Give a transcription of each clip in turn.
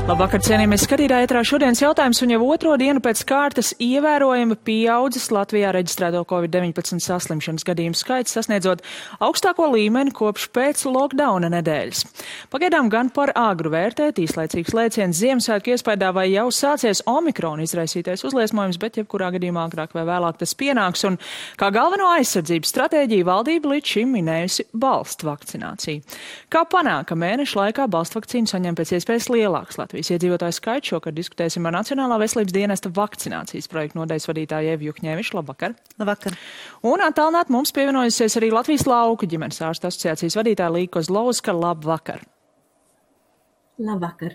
Labvakar, cienījamies skatītāji, ētrā šodienas jautājums, un jau otro dienu pēc kārtas ievērojami pieaudzis Latvijā reģistrēto COVID-19 saslimšanas gadījumu skaits, sasniedzot augstāko līmeni kopš pēc lockdowna nedēļas. Pagaidām gan par āgru vērtēt, īslaicīgs lēciens Ziemassvētku iespaidā vai jau sācies Omikrona izraisītais uzliesmojums, bet jebkurā gadījumā agrāk vai vēlāk tas pienāks, un kā galveno aizsardzības stratēģiju valdība līdz šim minējusi balstu vakcināciju. Kā panāk, ka mēneša laikā balstu vakcīnu saņem pēc iespējas lielāks Latvijas iedzīvotāju skaits? Šokar diskutēsim ar Nacionālā veselības dienesta vakcinācijas projektu nodaļas vadītāju Evu Juhņevišu. Labvakar! Labvakar! Un attālināt mums pievienojusies arī Latvijas lauku ģimenes ārstu asociācijas vadītāja Līga Kozlovska. Labvakar! Labvakar.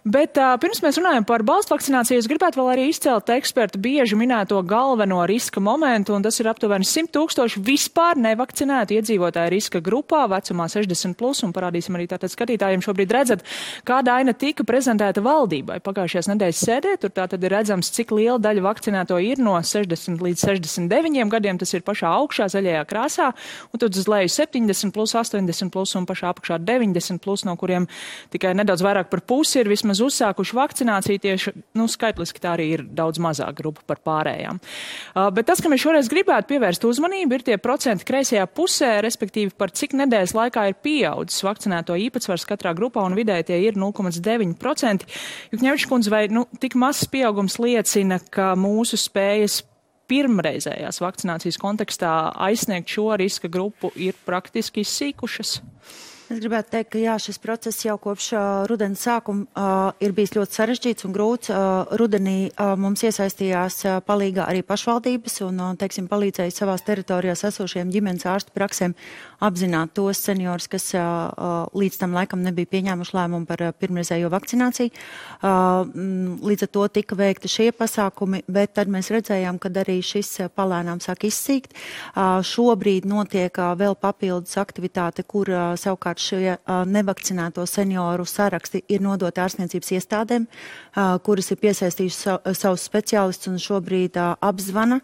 Bet pirms mēs runājam par balstu vakcināciju, es gribētu vēl arī izcelt ekspertu bieži minēto galveno riska momentu, un tas ir aptuveni 100 000 vispār nevakcinētu iedzīvotāju riska grupā vecumā 60+, un parādīsim arī tātad skatītājiem šobrīd redzat, kāda aina tika prezentēta valdībai pagājušajās nedēļas sēdē. Tur tātad ir redzams, cik liela daļa vakcinēto ir no 60 līdz 69 gadiem, tas ir pašā augšā zaļajā krāsā, un tad uz leju 70+, 80+, un pašā apakšā 90+, no kuriem tikai nedaudz vairāk par pusi ir vismaz uzsākuši vakcināciju, tieši, skaitliski tā arī ir daudz mazāk grupa par pārējām. Bet tas, ka mēs šoreiz gribētu pievērst uzmanību, ir tie procenti kreisajā pusē, respektīvi par cik nedēļas laikā ir pieaudzis vakcinēto īpatsvars katrā grupā, un vidēji tie ir 0,9%. Juhņevičs kundze, vai tik mazs pieaugums liecina, ka mūsu spējas pirmreizējās vakcinācijas kontekstā aizsniegt šo riska grupu ir praktiski izsīkušas? Es gribētu teikt, ka jā, šis process jau kopš rudens sākuma ir bijis ļoti sarežģīts un grūts. Rudenī mums iesaistījās palīgā arī pašvaldības un, palīdzēja savās teritorijās esošiem ģimenes ārstu praksēm apzināt tos seniorus, kas līdz tam laikam nebija pieņēmuši lēmumu par pirmreizējo vakcināciju. Līdz ar to tika veikti šie pasākumi, bet tad mēs redzējām, ka arī šis palēnām sāk izsīkt. Šobrīd notiek vēl papildus aktivitāte, kur savukārt šie nevakcinēto senioru saraksti ir nodoti ārstniecības iestādēm, kuras ir piesaistījuši savus speciālistus un šobrīd apzvana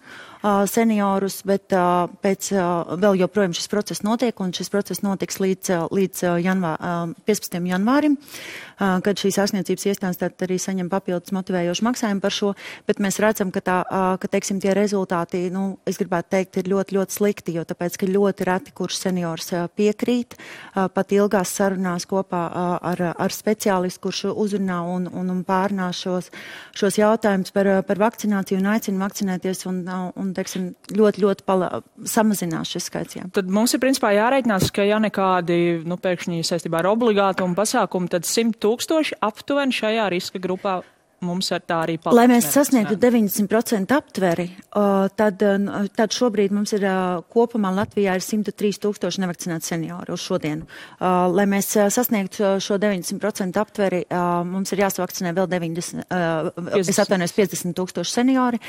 seniorus, bet vēl joprojām šis process notiek, un šis process notiks līdz 15. janvārim, kad šīs ārstniecības iestādes arī saņem papildus motivējošu maksājumu par šo, bet mēs redzam, ka tie rezultāti, es gribētu teikt, ir ļoti, ļoti slikti, jo tāpēc, ka ļoti reti, kurš seniors piekrīt, pat ilgās sarunās kopā ar speciālistu, kurš uzrunā un pārnā šos jautājumus par vakcināciju un aicina vakcinēties un ļoti, ļoti samazinās šis skaits. Jā. Tad mums ir principā jāreikinās, ka ja nekādi, pēkšņi saistībā ar obligātumu pasākumu, tad 100 000 aptuveni šajā riska grupā mums ar tā arī paliks. Lai mēs sasniegtu 90% aptveri, tad šobrīd mums ir kopumā Latvijā ir 103 000 nevakcinētu senioru uz šodienu. Lai mēs sasniegtu šo 90% aptveri, mums ir jāsavakcinē vēl 50 000 seniori.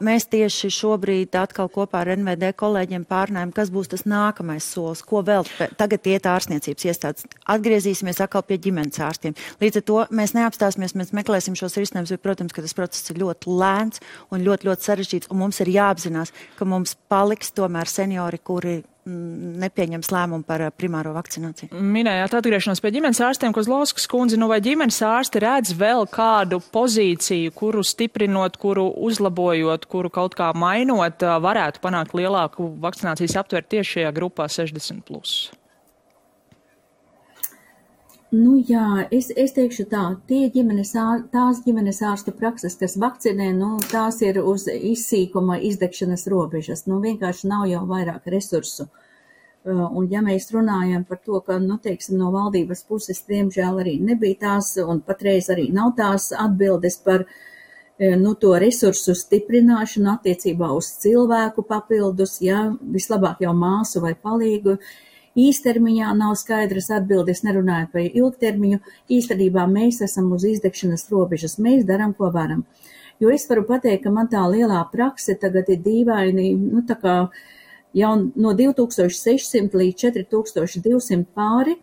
Mēs tieši šobrīd atkal kopā ar NVD kolēģiem pārnājam, kas būs tas nākamais solis, ko vēl tagad iet ārstniecības iestādes. Atgriezīsimies atkal pie ģimenes ārstiem. Līdz ar to mēs neapstāsimies, mēs meklēsim šos risinājums, bet, protams, ka tas process ir ļoti lēns un ļoti, ļoti sarežģīts, un mums ir jāapzinās, ka mums paliks tomēr seniori, kuri nepieņems lēmumu par primāro vakcināciju. Minējāt atgriešanos pie ģimenes ārstiem, Kozlovskas kundze, vai ģimenes ārsti redz vēl kādu pozīciju, kuru stiprinot, kuru uzlabojot, kuru kaut kā mainot, varētu panākt lielāku vakcinācijas aptveru tieši šajā grupā 60+? Jā, es teikšu tā, tās ģimenes ārstu prakses, kas vakcinē, tās ir uz izsīkuma, izdegšanas robežas, vienkārši nav jau vairāk resursu. Un ja mēs runājam par to, ka, no valdības puses, diemžēl arī nebija tās, un patreiz arī nav tās atbildes par, to resursu stiprināšanu attiecībā uz cilvēku papildus, vislabāk jau māsu vai palīgu. Īstermiņā nav skaidras atbildes, nerunājot par ilgtermiņu. Īstenībā mēs esam uz izdegšanas robežas, mēs darām, ko varam. Jo es varu pateikt, ka man tā lielā prakse tagad ir dīvaini, tā kā jau no 2600 līdz 4200 pāri,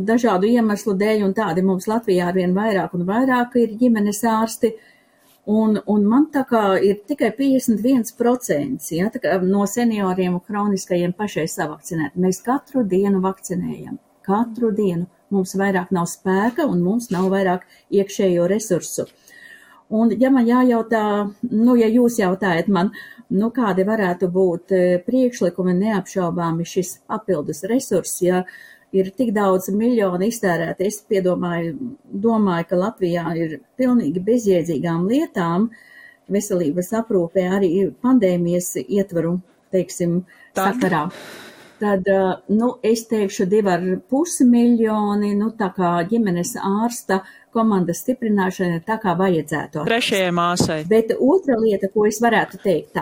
dažādu iemeslu dēļ, un tādi mums Latvijā arvien vairāk un vairāk ir ģimenes ārsti. Un man tā kā ir tikai 51% no senioriem un kroniskajiem pašai savakcinēt. Mēs katru dienu vakcinējam. Katru dienu. Mums vairāk nav spēka un mums nav vairāk iekšējo resursu. Un, ja man jājautā, ja jūs jautājat man, kādi varētu būt priekšlikumi neapšaubāmi šis papildus resurss, ja ir tik daudz miljonu iztērēti, es domāju, ka Latvijā ir pilnīgi bezjēdzīgām lietām, veselības aprūpē arī pandēmijas ietvaru, sakarā. Tad, es teikšu 2,5 miljoni, tā kā ģimenes ārsta komandas stiprināšana tā kā vajadzētu. Trešajai māsai. Bet otra lieta, ko es varētu teikt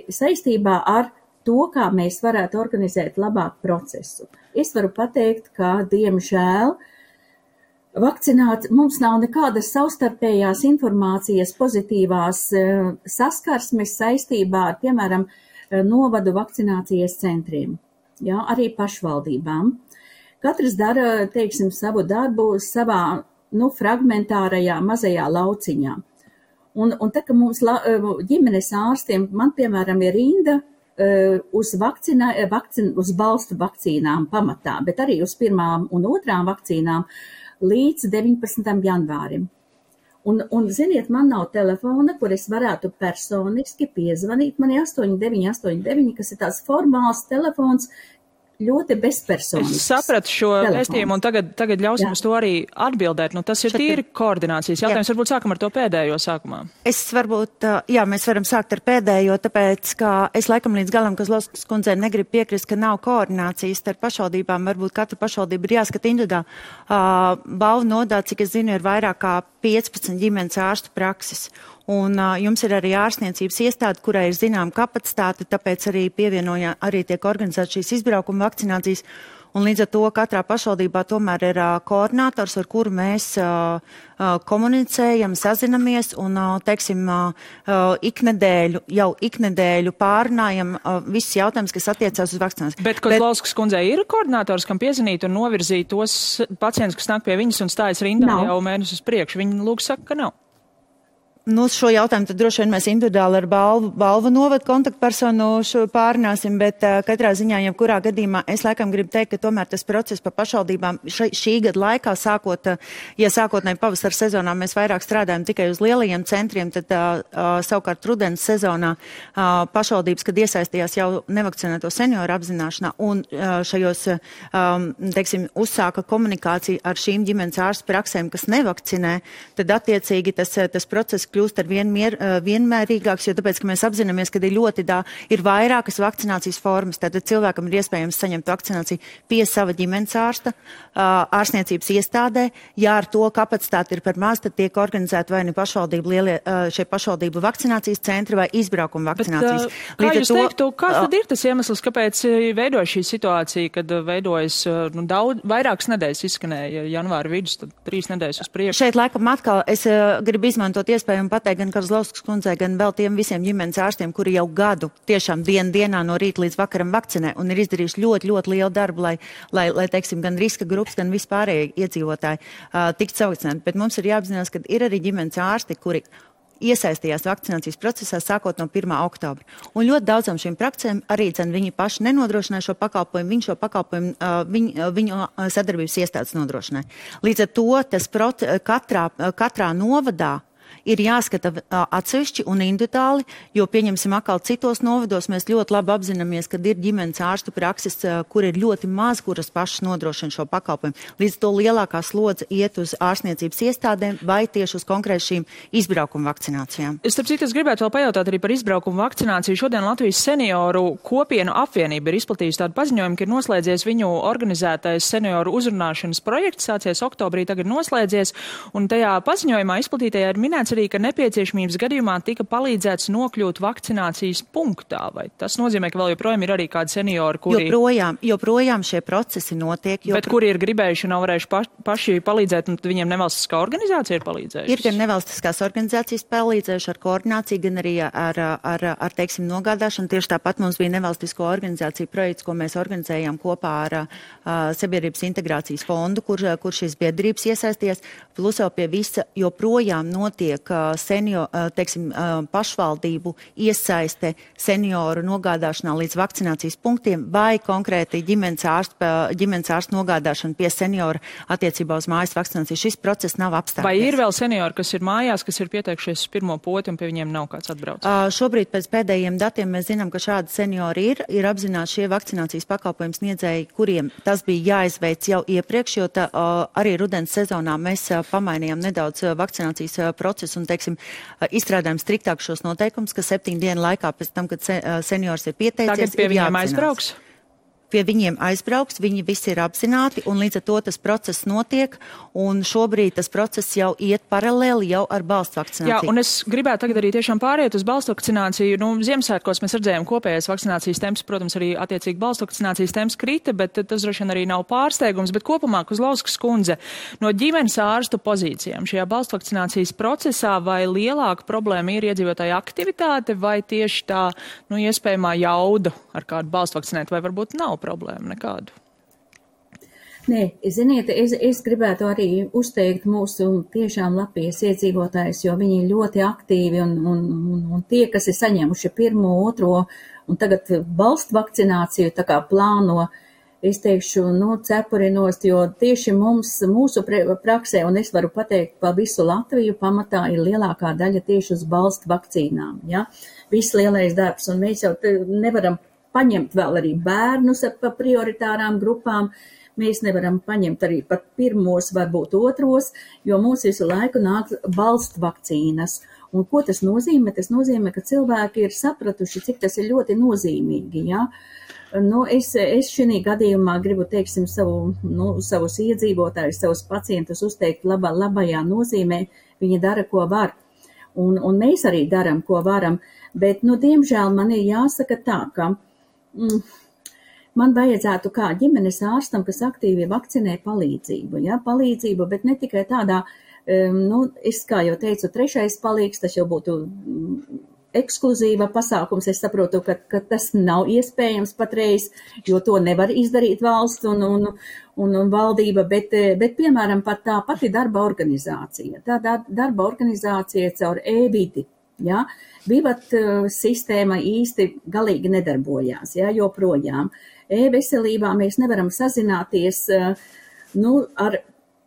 saistībā ar to, kā mēs varētu organizēt labāk procesu. Es varu pateikt, ka, diemžēl, mums nav nekādas savstarpējās informācijas pozitīvās saskarsmes saistībā ar, piemēram, novadu vakcinācijas centriem. Jā, arī pašvaldībām. Katrs dara, savu darbu savā, fragmentārajā mazajā lauciņā. Un tā, ka mums ģimenes ārstiem, man, piemēram, ir rinda uz balstu vakcīnām pamatā, bet arī uz 1. un 2. vakcīnām līdz 19. janvārim. Un ziniet, man nav telefona, kur es varētu personiski piezvanīt. Man ir 8989, kas ir tās formāls telefons, ļoti bezpersonisks. Es sapratu šo vēstījumu un tagad ļausim uz to arī atbildēt. Tas ir tīri koordinācijas jautājums. Varbūt sākam ar to pēdējo sākumā. Mēs varam sākt ar pēdējo, tāpēc, ka es laikam līdz galam, ka Kozlovskas kundzei negribu piekrist, ka nav koordinācijas starp pašvaldībām. Varbūt katra pašvaldība ir jāskata individuāli. Balvu nodā, cik es zinu, ir vairāk kā 15 ģimenes ārstu prakses. Un jums ir arī ārstniecības iestāde, kurai ir zinām kapacitāte, tāpēc arī arī tiek organizēta šīs izbraukuma vakcinācijas. Un līdz ar to katrā pašvaldībā tomēr ir koordinators, ar kuru mēs komunicējam, sazinamies un, iknedēļu pārunājam visus jautājumus, kas attiecās uz vakcināciju. Bet Kozlovskas kundzei ir koordinators, kam piezinīt un novirzīt tos pacientus, kas nāk pie viņas un stājas rindā jau mēnešus uz priekšu. Viņa lūk saka, ka nav. Šo jautājumu tad droši vien mēs individuāli ar balvu novadu kontaktpersonu pārunāsim, bet katrā ziņā, jebkurā gadījumā, es laikam gribu teikt, ka tomēr tas process pa pašvaldībām šī gada laikā, sākotnēji pavasara sezonā mēs vairāk strādājam tikai uz lielajiem centriem, tad savukārt rudens sezonā pašvaldības, kad iesaistījās jau nevakcinēto senioru apzināšanā un šajos, uzsāka komunikāciju ar šīm ģimenes ārstu praksēm, kas nevakcinē, tad attiecīgi tas process kļūst ar vienmērīgāks, jo tāpēc, ka mēs apzināmies, ka ir vairākas vakcinācijas formas, tātad cilvēkam ir iespējams saņemt vakcināciju pie sava ģimenes ārsta, ārstniecības iestādē. Ja ar to kapacitāti ir par maz, tad tiek organizēta vai nu pašvaldību vakcinācijas centri vai izbraukuma vakcinācijas. Bet, kā jūs teiktu, kāds tad ir tas iemesls, kāpēc veidojas šī situācija, kad veidojas vairākas nedēļas izskanēja janvāra vidus, tad 3 nedēļas uz priekšu? Šeit laikam atkal es gribu izmantot iespēju un pateikt gan Kozlovskas kundzei, gan vēl tiem visiem ģimenes ārstiem, kuri jau gadu tiešām dienā no rīta līdz vakaram vakcinē un ir izdarījuši ļoti, ļoti lielu darbu, lai gan riska grupas, gan vispārējie iedzīvotāji tiktu savakcinēti. Bet mums ir jāapzinās, ka ir arī ģimenes ārsti, kuri iesaistījās vakcinācijas procesā sākot no 1. oktobra. Un ļoti daudzām šīm praksēm arī viņi paši nenodrošināja šo pakalpojumu, viņu sadarbības iestādes nodrošināja. Līdz ar to tas katrā novadā ir jāskata atsevišķi un individuāli, jo pieņemsim atkal citos novados, mēs ļoti labi apzināmies, ka ir ģimenes ārstu prakses, kur ir ļoti maz, kuras pašas nodrošina šo pakalpojumu. Līdz to lielākā slodze iet uz ārstniecības iestādēm vai tieši uz konkrēti šīm izbraukuma vakcinācijām. Starp citu, es gribētu vēl pajautāt arī par izbraukuma vakcināciju. Šodien Latvijas senioru kopienu apvienība ir izplatījusi tādu paziņojumu, ka ir noslēdzies viņu organizētais senioru uzrunāšanas projekts, sācies oktobrī, tagad noslēdzies, un tajā paziņojumā izplatītajā ir minēts arī, ka nepieciešamības gadījumā tika palīdzēts nokļūt vakcinācijas punktā. Vai tas nozīmē, ka vēl joprojām ir arī kādi seniori, kuri... Joprojām šie procesi notiek. Bet kuri ir gribējuši un nav varējuši paši palīdzēt, un viņiem nevalstiskā organizācija ir palīdzējusi? Ir gan nevalstiskās organizācijas palīdzējuši ar koordināciju, gan arī ar nogādāšanu. Tieši tāpat mums bija nevalstisko organizāciju projekts, ko mēs organizējām kopā ar Sabiedrības integrācijas fondu, kur šīs biedrības iesaisties. Plus jau pie visa joprojām notiek notiek pašvaldību iesaiste senioru nogādāšanā līdz vakcinācijas punktiem vai konkrēti ģimenes ārsta nogādāšana pie seniora attiecībā uz mājas vakcināciju. Šis process nav apstājies. Vai ir vēl seniori, kas ir mājās, kas ir pieteikušies uz pirmo poti un pie viņiem nav kāds atbrauc? Šobrīd pēc pēdējiem datiem mēs zinām, ka šādi seniori ir apzināti šie vakcinācijas pakalpojums sniedzēji, kuriem tas bija jāizveic jau iepriekš, jo arī rudens sezonā mēs pamainījām nedaudz vakcinācijas procesu un, izstrādājam striktāk šos noteikumus, ka 7 dienu laikā pēc tam, kad seniors ir pieteicies, tagad pie viņiem aizbrauks? Pie viņiem aizbrauks, viņi visi ir apzināti, un līdz ar to tas process notiek, un šobrīd tas process jau iet paralēli jau ar balstu vakcināciju. Jā, un es gribētu tagad arī tiešām pāriet uz balstu vakcināciju. Ziemassvētkos mēs redzējām kopējais vakcinācijas temps, protams, arī attiecīgi balstu vakcinācijas temps krita, bet tas droši vien arī nav pārsteigums, bet kopumā, Kozlauskas kundze, no ģimenes ārstu pozīcijām šajā balstu vakcinācijas procesā vai lielāka problēma ir iedzīvotāja aktivitāte vai tieši tā, iespējamā jauda ar kādu balstu vakcinēt, vai varbūt nav problēma nekādu? Nē, ziniet, es gribētu arī uzteikt mūsu tiešām Latvijas iedzīvotājus, jo viņi ir ļoti aktīvi un tie, kas ir saņēmuši 1., 2. un tagad balstu vakcināciju, tā kā plāno, es teikšu, cepurinos, jo tieši mūsu praksē, un es varu pateikt pa visu Latviju, pamatā ir lielākā daļa tieši uz balstu vakcīnām, ja? Viss lielais darbs, un mēs jau nevaram paņemt vēl arī bērnus pa prioritārām grupām. Mēs nevaram paņemt arī pat 1., varbūt 2., jo mums visu laiku nāk balstu vakcīnas. Un ko tas nozīmē? Tas nozīmē, ka cilvēki ir sapratuši, cik tas ir ļoti nozīmīgi. Ja? Es šī gadījumā gribu, savus iedzīvotājus, savus pacientus uzteikt labajā nozīmē. Viņi dara, ko var. Un mēs arī daram, ko varam. Bet, diemžēl man ir jāsaka tā, ka man vajadzētu kā ģimenes ārstam, kas aktīvi vakcinē palīdzību, palīdzību, bet ne tikai tādā, es kā jau teicu, 3. palīgs, tas jau būtu ekskluzīva pasākums, es saprotu, ka tas nav iespējams patreiz, jo to nevar izdarīt valsts un valdība, bet piemēram, pat tā pati darba organizācija, darba organizācija caur e-vidi. Ja? Vivat sistēma īsti galīgi nedarbojās, joprojām. E-veselībā mēs nevaram sazināties ar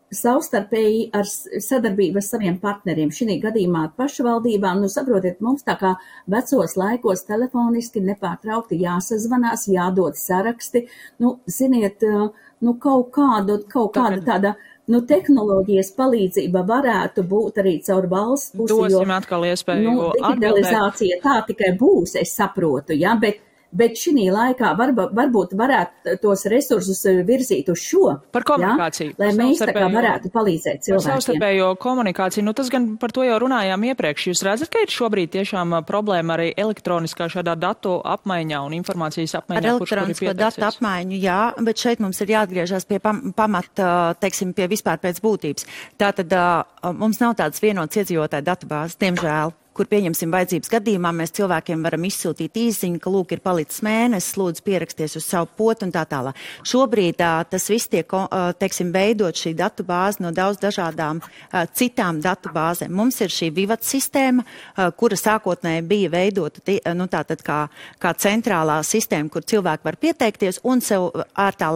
savstarpēji ar sadarbību ar saviem partneriem. Šī gadījumā pašvaldībām, saprotiet, mums tā kā vecos laikos telefoniski nepārtraukti jāsazvanās, jādod saraksti, ziniet, kaut kāda tāda tehnoloģijas palīdzība varētu būt arī caur valsts pusi, dosim atkal iespēju digitalizācija tā tikai būs, es saprotu, bet šī laikā varbūt varētu tos resursus virzīt uz šo. Par komunikāciju. Lai mēs tā kā varētu palīdzēt cilvēkiem. Par savstarpējo komunikāciju. Tas gan par to jau runājām iepriekš. Jūs redzat, ka ir šobrīd tiešām problēma arī elektroniskā šādā datu apmaiņā un informācijas apmaiņā? Ar elektronisko datu apmaiņu, jā, bet šeit mums ir jāatgriežas pie pamata, pie vispār pēc būtības. Tātad mums nav tādas vienotas iedzīvotāju datubāzes, diemžēl, kur pieņemsim vajadzības gadījumā, mēs cilvēkiem varam izsūtīt īziņu, ka lūk ir palicis mēnesis, lūdzu pieraksties uz savu potu un tā tālāk. Šobrīd tas viss tiek, veidot šī datu bāze no daudz dažādām citām datu bāzēm. Mums ir šī Vivat sistēma, kura sākotnēji bija veidota tātad kā centrālā sistēma, kur cilvēki var pieteikties un sev ārtā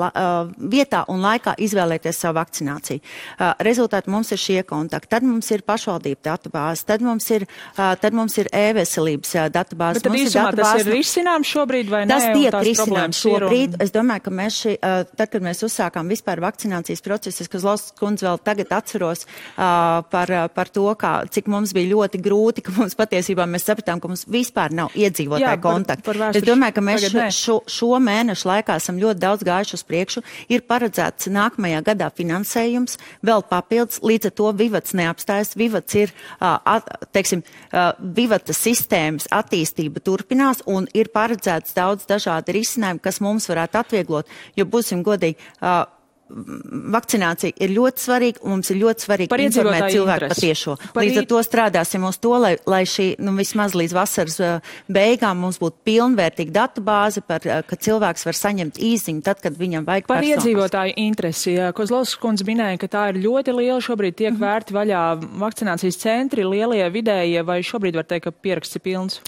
vietā un laikā izvēlēties savu vakcināciju. Rezultāti mums ir šie kontakti. Tad mums ir pašvaldību datu bāze, tad mums ir e-veselības datubāzes. Bet tad īsumā tas ir risināms šobrīd vai nē? Tas tiek risināms šobrīd. Es domāju, ka mēs tad, kad mēs uzsākām vispār vakcinācijas procesu, es Kozlauskas kundze vēl tagad atceros par to, cik mums bija ļoti grūti, ka mums patiesībā mēs sapratām, ka mums vispār nav iedzīvotāju kontaktu. Es domāju, ka mēs šo mēnešu laikā esam ļoti daudz gājuši uz priekšu. Ir paredzēts nākamajā gadā finansējums, vēl papildus, līdz ar to Vivats neapstājas. Vivats ir, Vivata sistēmas attīstība turpinās un ir paredzēts daudz dažādi risinājumi, kas mums varētu atvieglot, jo būsim godīgi, vakcinācija ir ļoti svarīga, un mums ir ļoti svarīgi informēt cilvēku patiešo. Līdz ar to strādāsim uz to, lai šī, vismaz līdz vasaras beigām mums būtu pilnvērtīga datubāze, ka cilvēks var saņemt īziņu tad, kad viņam vajag par personas. Iedzīvotāju interesi. Kozlovskas kundze minēja, ka tā ir ļoti liela. Šobrīd tiek vērti vaļā vakcinācijas centri, lielie, vidējie, vai šobrīd var teikt, ka pieraksts ir pilns?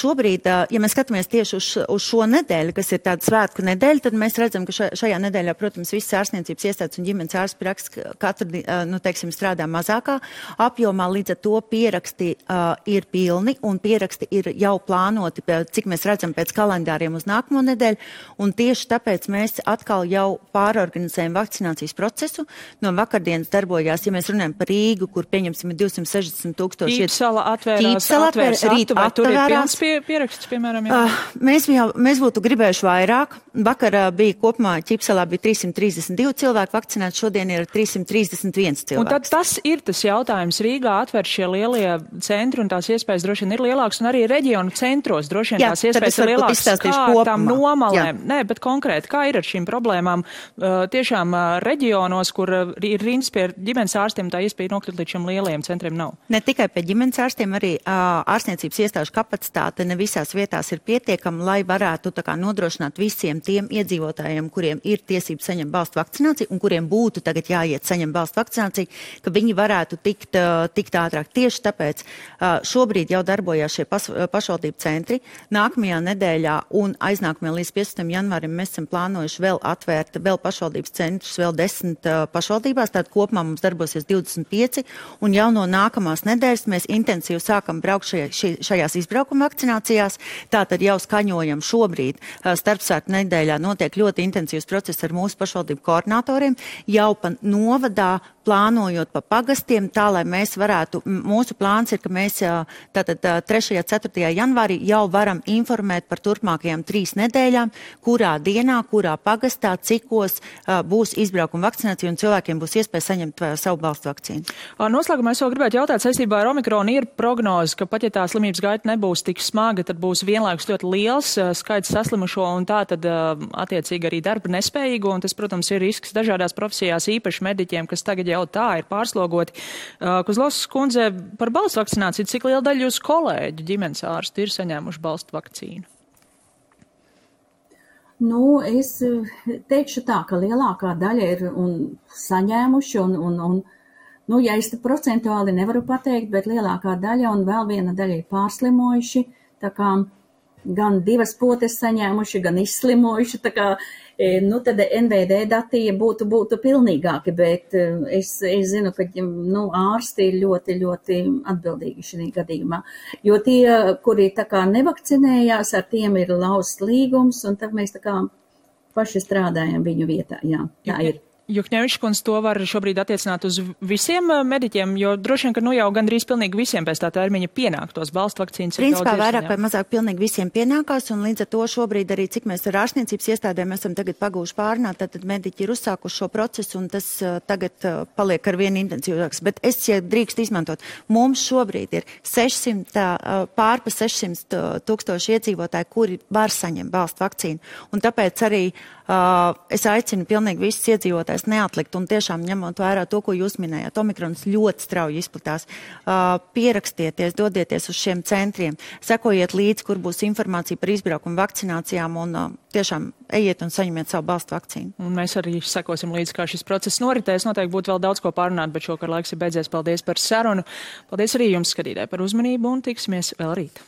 Šobrīd, ja mēs skatāmies tieši uz šo nedēļu, kas ir tāda svētku nedēļa, tad mēs redzam, ka šajā nedēļā, protams, visas ārstniecības iestādes un ģimenes ārsts praktiski katru, strādā mazākā apjomā, līdz ar to pieraksti ir pilni un pieraksti ir jau plānoti, cik mēs redzam pēc kalendāriem uz nākamo nedēļu, un tieši tāpēc mēs atkal jau pārorganizējam vakcinācijas procesu. No vakardienas darbojās, ja mēs runājam par Rīgu, kur pieņemsim 260,000. Ķīpsala atvērās, vai tur ir pilns pieraksts, piemēram? Mēs būtu gribējuši vairāk. Vakar bija kopumā Ķīpsalā bija 332 cilvēki vakcinēti, šodien ir 331 cilvēki. Un tad tas ir tas jautājums. Rīgā atver šie lielie centri un tās iespējas droši vien ir lielākas, un arī reģionu centros droši vien tās iespējas ir lielākas. Kā tam nomalēm? Nē, bet konkrēti, kā ir ar šīm problēmām? Tiešām reģionos, kur ir rindas pie ģimenes ārstiem, tā iespēja nokļūt līdz šiem lielajiem centriem nav. Ne tikai pie ģimenes ārstiem, arī ārstniecības iestāžu kapacitāte ne visās vietās ir pietiekama, lai varētu nodrošināt visiem tiem iedzīvotājiem, kuriem ir tiesības saņemt balstu vakcināciju un kuriem būtu tagad jāiet saņemt balstu vakcināciju, ka viņi varētu tikt ātrāk. Tieši tāpēc šobrīd jau darbojās šie pašvaldību centri. Nākamajā nedēļā un aiznākamajā līdz 15. janvārim mēs esam plānojuši vēl atvērt vēl pašvaldības centrus, vēl 10 pašvaldībās, tātad kopumā mums darbosies 25, un jau no nākamās nedēļas mēs intensīvi sākam braukt šajās izbraukuma vakcinācijās, tātad jau skaņojam šobrīd starpsvētku nedēļā notiek ļoti intensīvs process ar mūsu pašvaldību koordinatoriem, jau pa novadā plānojot pa pagastiem, tā, lai mēs varētu, mūsu plāns ir, ka mēs tātad 3. 4. janvārī jau varam informēt par turpmākajām 3 nedēļām, kurā dienā, kurā pagastā, cikos būs izbraukuma vakcinācija un cilvēkiem būs iespēja saņemt savu balstu vakcīnu. Noslēgumā es vēl gribētu jautāt saistībā ar Omikronu. Ir prognoze, ka pat ja tā slimības gaita nebūs tik smaga, tad būs vienlaikus ļoti liels skaits saslimušo un tā tad attiecīgi arī darba nespējīgo, un tas, protams, ir risks dažādās profesijās, īpaši mediķiem, kas tagad jau tā ir pārslogoti. Kozlovskas kundze, par balstu vakcināciju, cik liela daļa jūsu kolēģu ģimenes ārstu ir saņēmuši balstu vakcīnu? Es teikšu tā, ka lielākā daļa ir saņēmuši ja es te procentuāli nevaru pateikt, bet lielākā daļa un vēl viena daļa ir pārslimojuši, tā kā gan 2 potes saņēmuši, gan izslimojuši, tā kā, tad NVD dati būtu pilnīgāki, bet es zinu, ka ārsti ir ļoti, ļoti atbildīgi šī gadījumā, jo tie, kuri tā kā nevakcinējās, ar tiem ir lausts līgums, un tad mēs tā kā paši strādājam viņu vietā, jā, tā ir. Jukņevičs kundze, to var šobrīd attiecināt uz visiem mediķiem, jo droši vien, ka jau gandrīz pilnīgi visiem pēc tā termiņa pienāktos balstu vakcīnas. Principā vairāk vai mazāk pilnīgi visiem pienākās, un līdz ar to šobrīd arī, cik mēs ar ārstniecības iestādēm esam tagad pagūši pārnāt, tad mediķi ir uzsākuši šo procesu, un tas tagad paliek ar vien intensīvāks. Bet es, ja drīkst izmantot, mums šobrīd ir pār pa 600,000 iedzīvotāji, kuri var saņemt balstu vakcīnu, un tāpēc arī es aicinu pilnīgi visus iedzīvotājus neatlikt un tiešām ņemot vērā to, ko jūs minējāt. Omikrons ļoti strauji izplatās. Pierakstieties, dodieties uz šiem centriem, sekojiet līdzi, kur būs informācija par izbraukumu vakcinācijām un tiešām ejiet un saņemiet savu balstu vakcīnu. Un mēs arī sekosim līdzi, kā šis process noritēs. Noteikti būtu vēl daudz ko pārunāt, bet šokar laiks ir beidzies. Paldies par sarunu. Paldies arī jums, skatītāji, par uzmanību un tiksimies vēl rīt.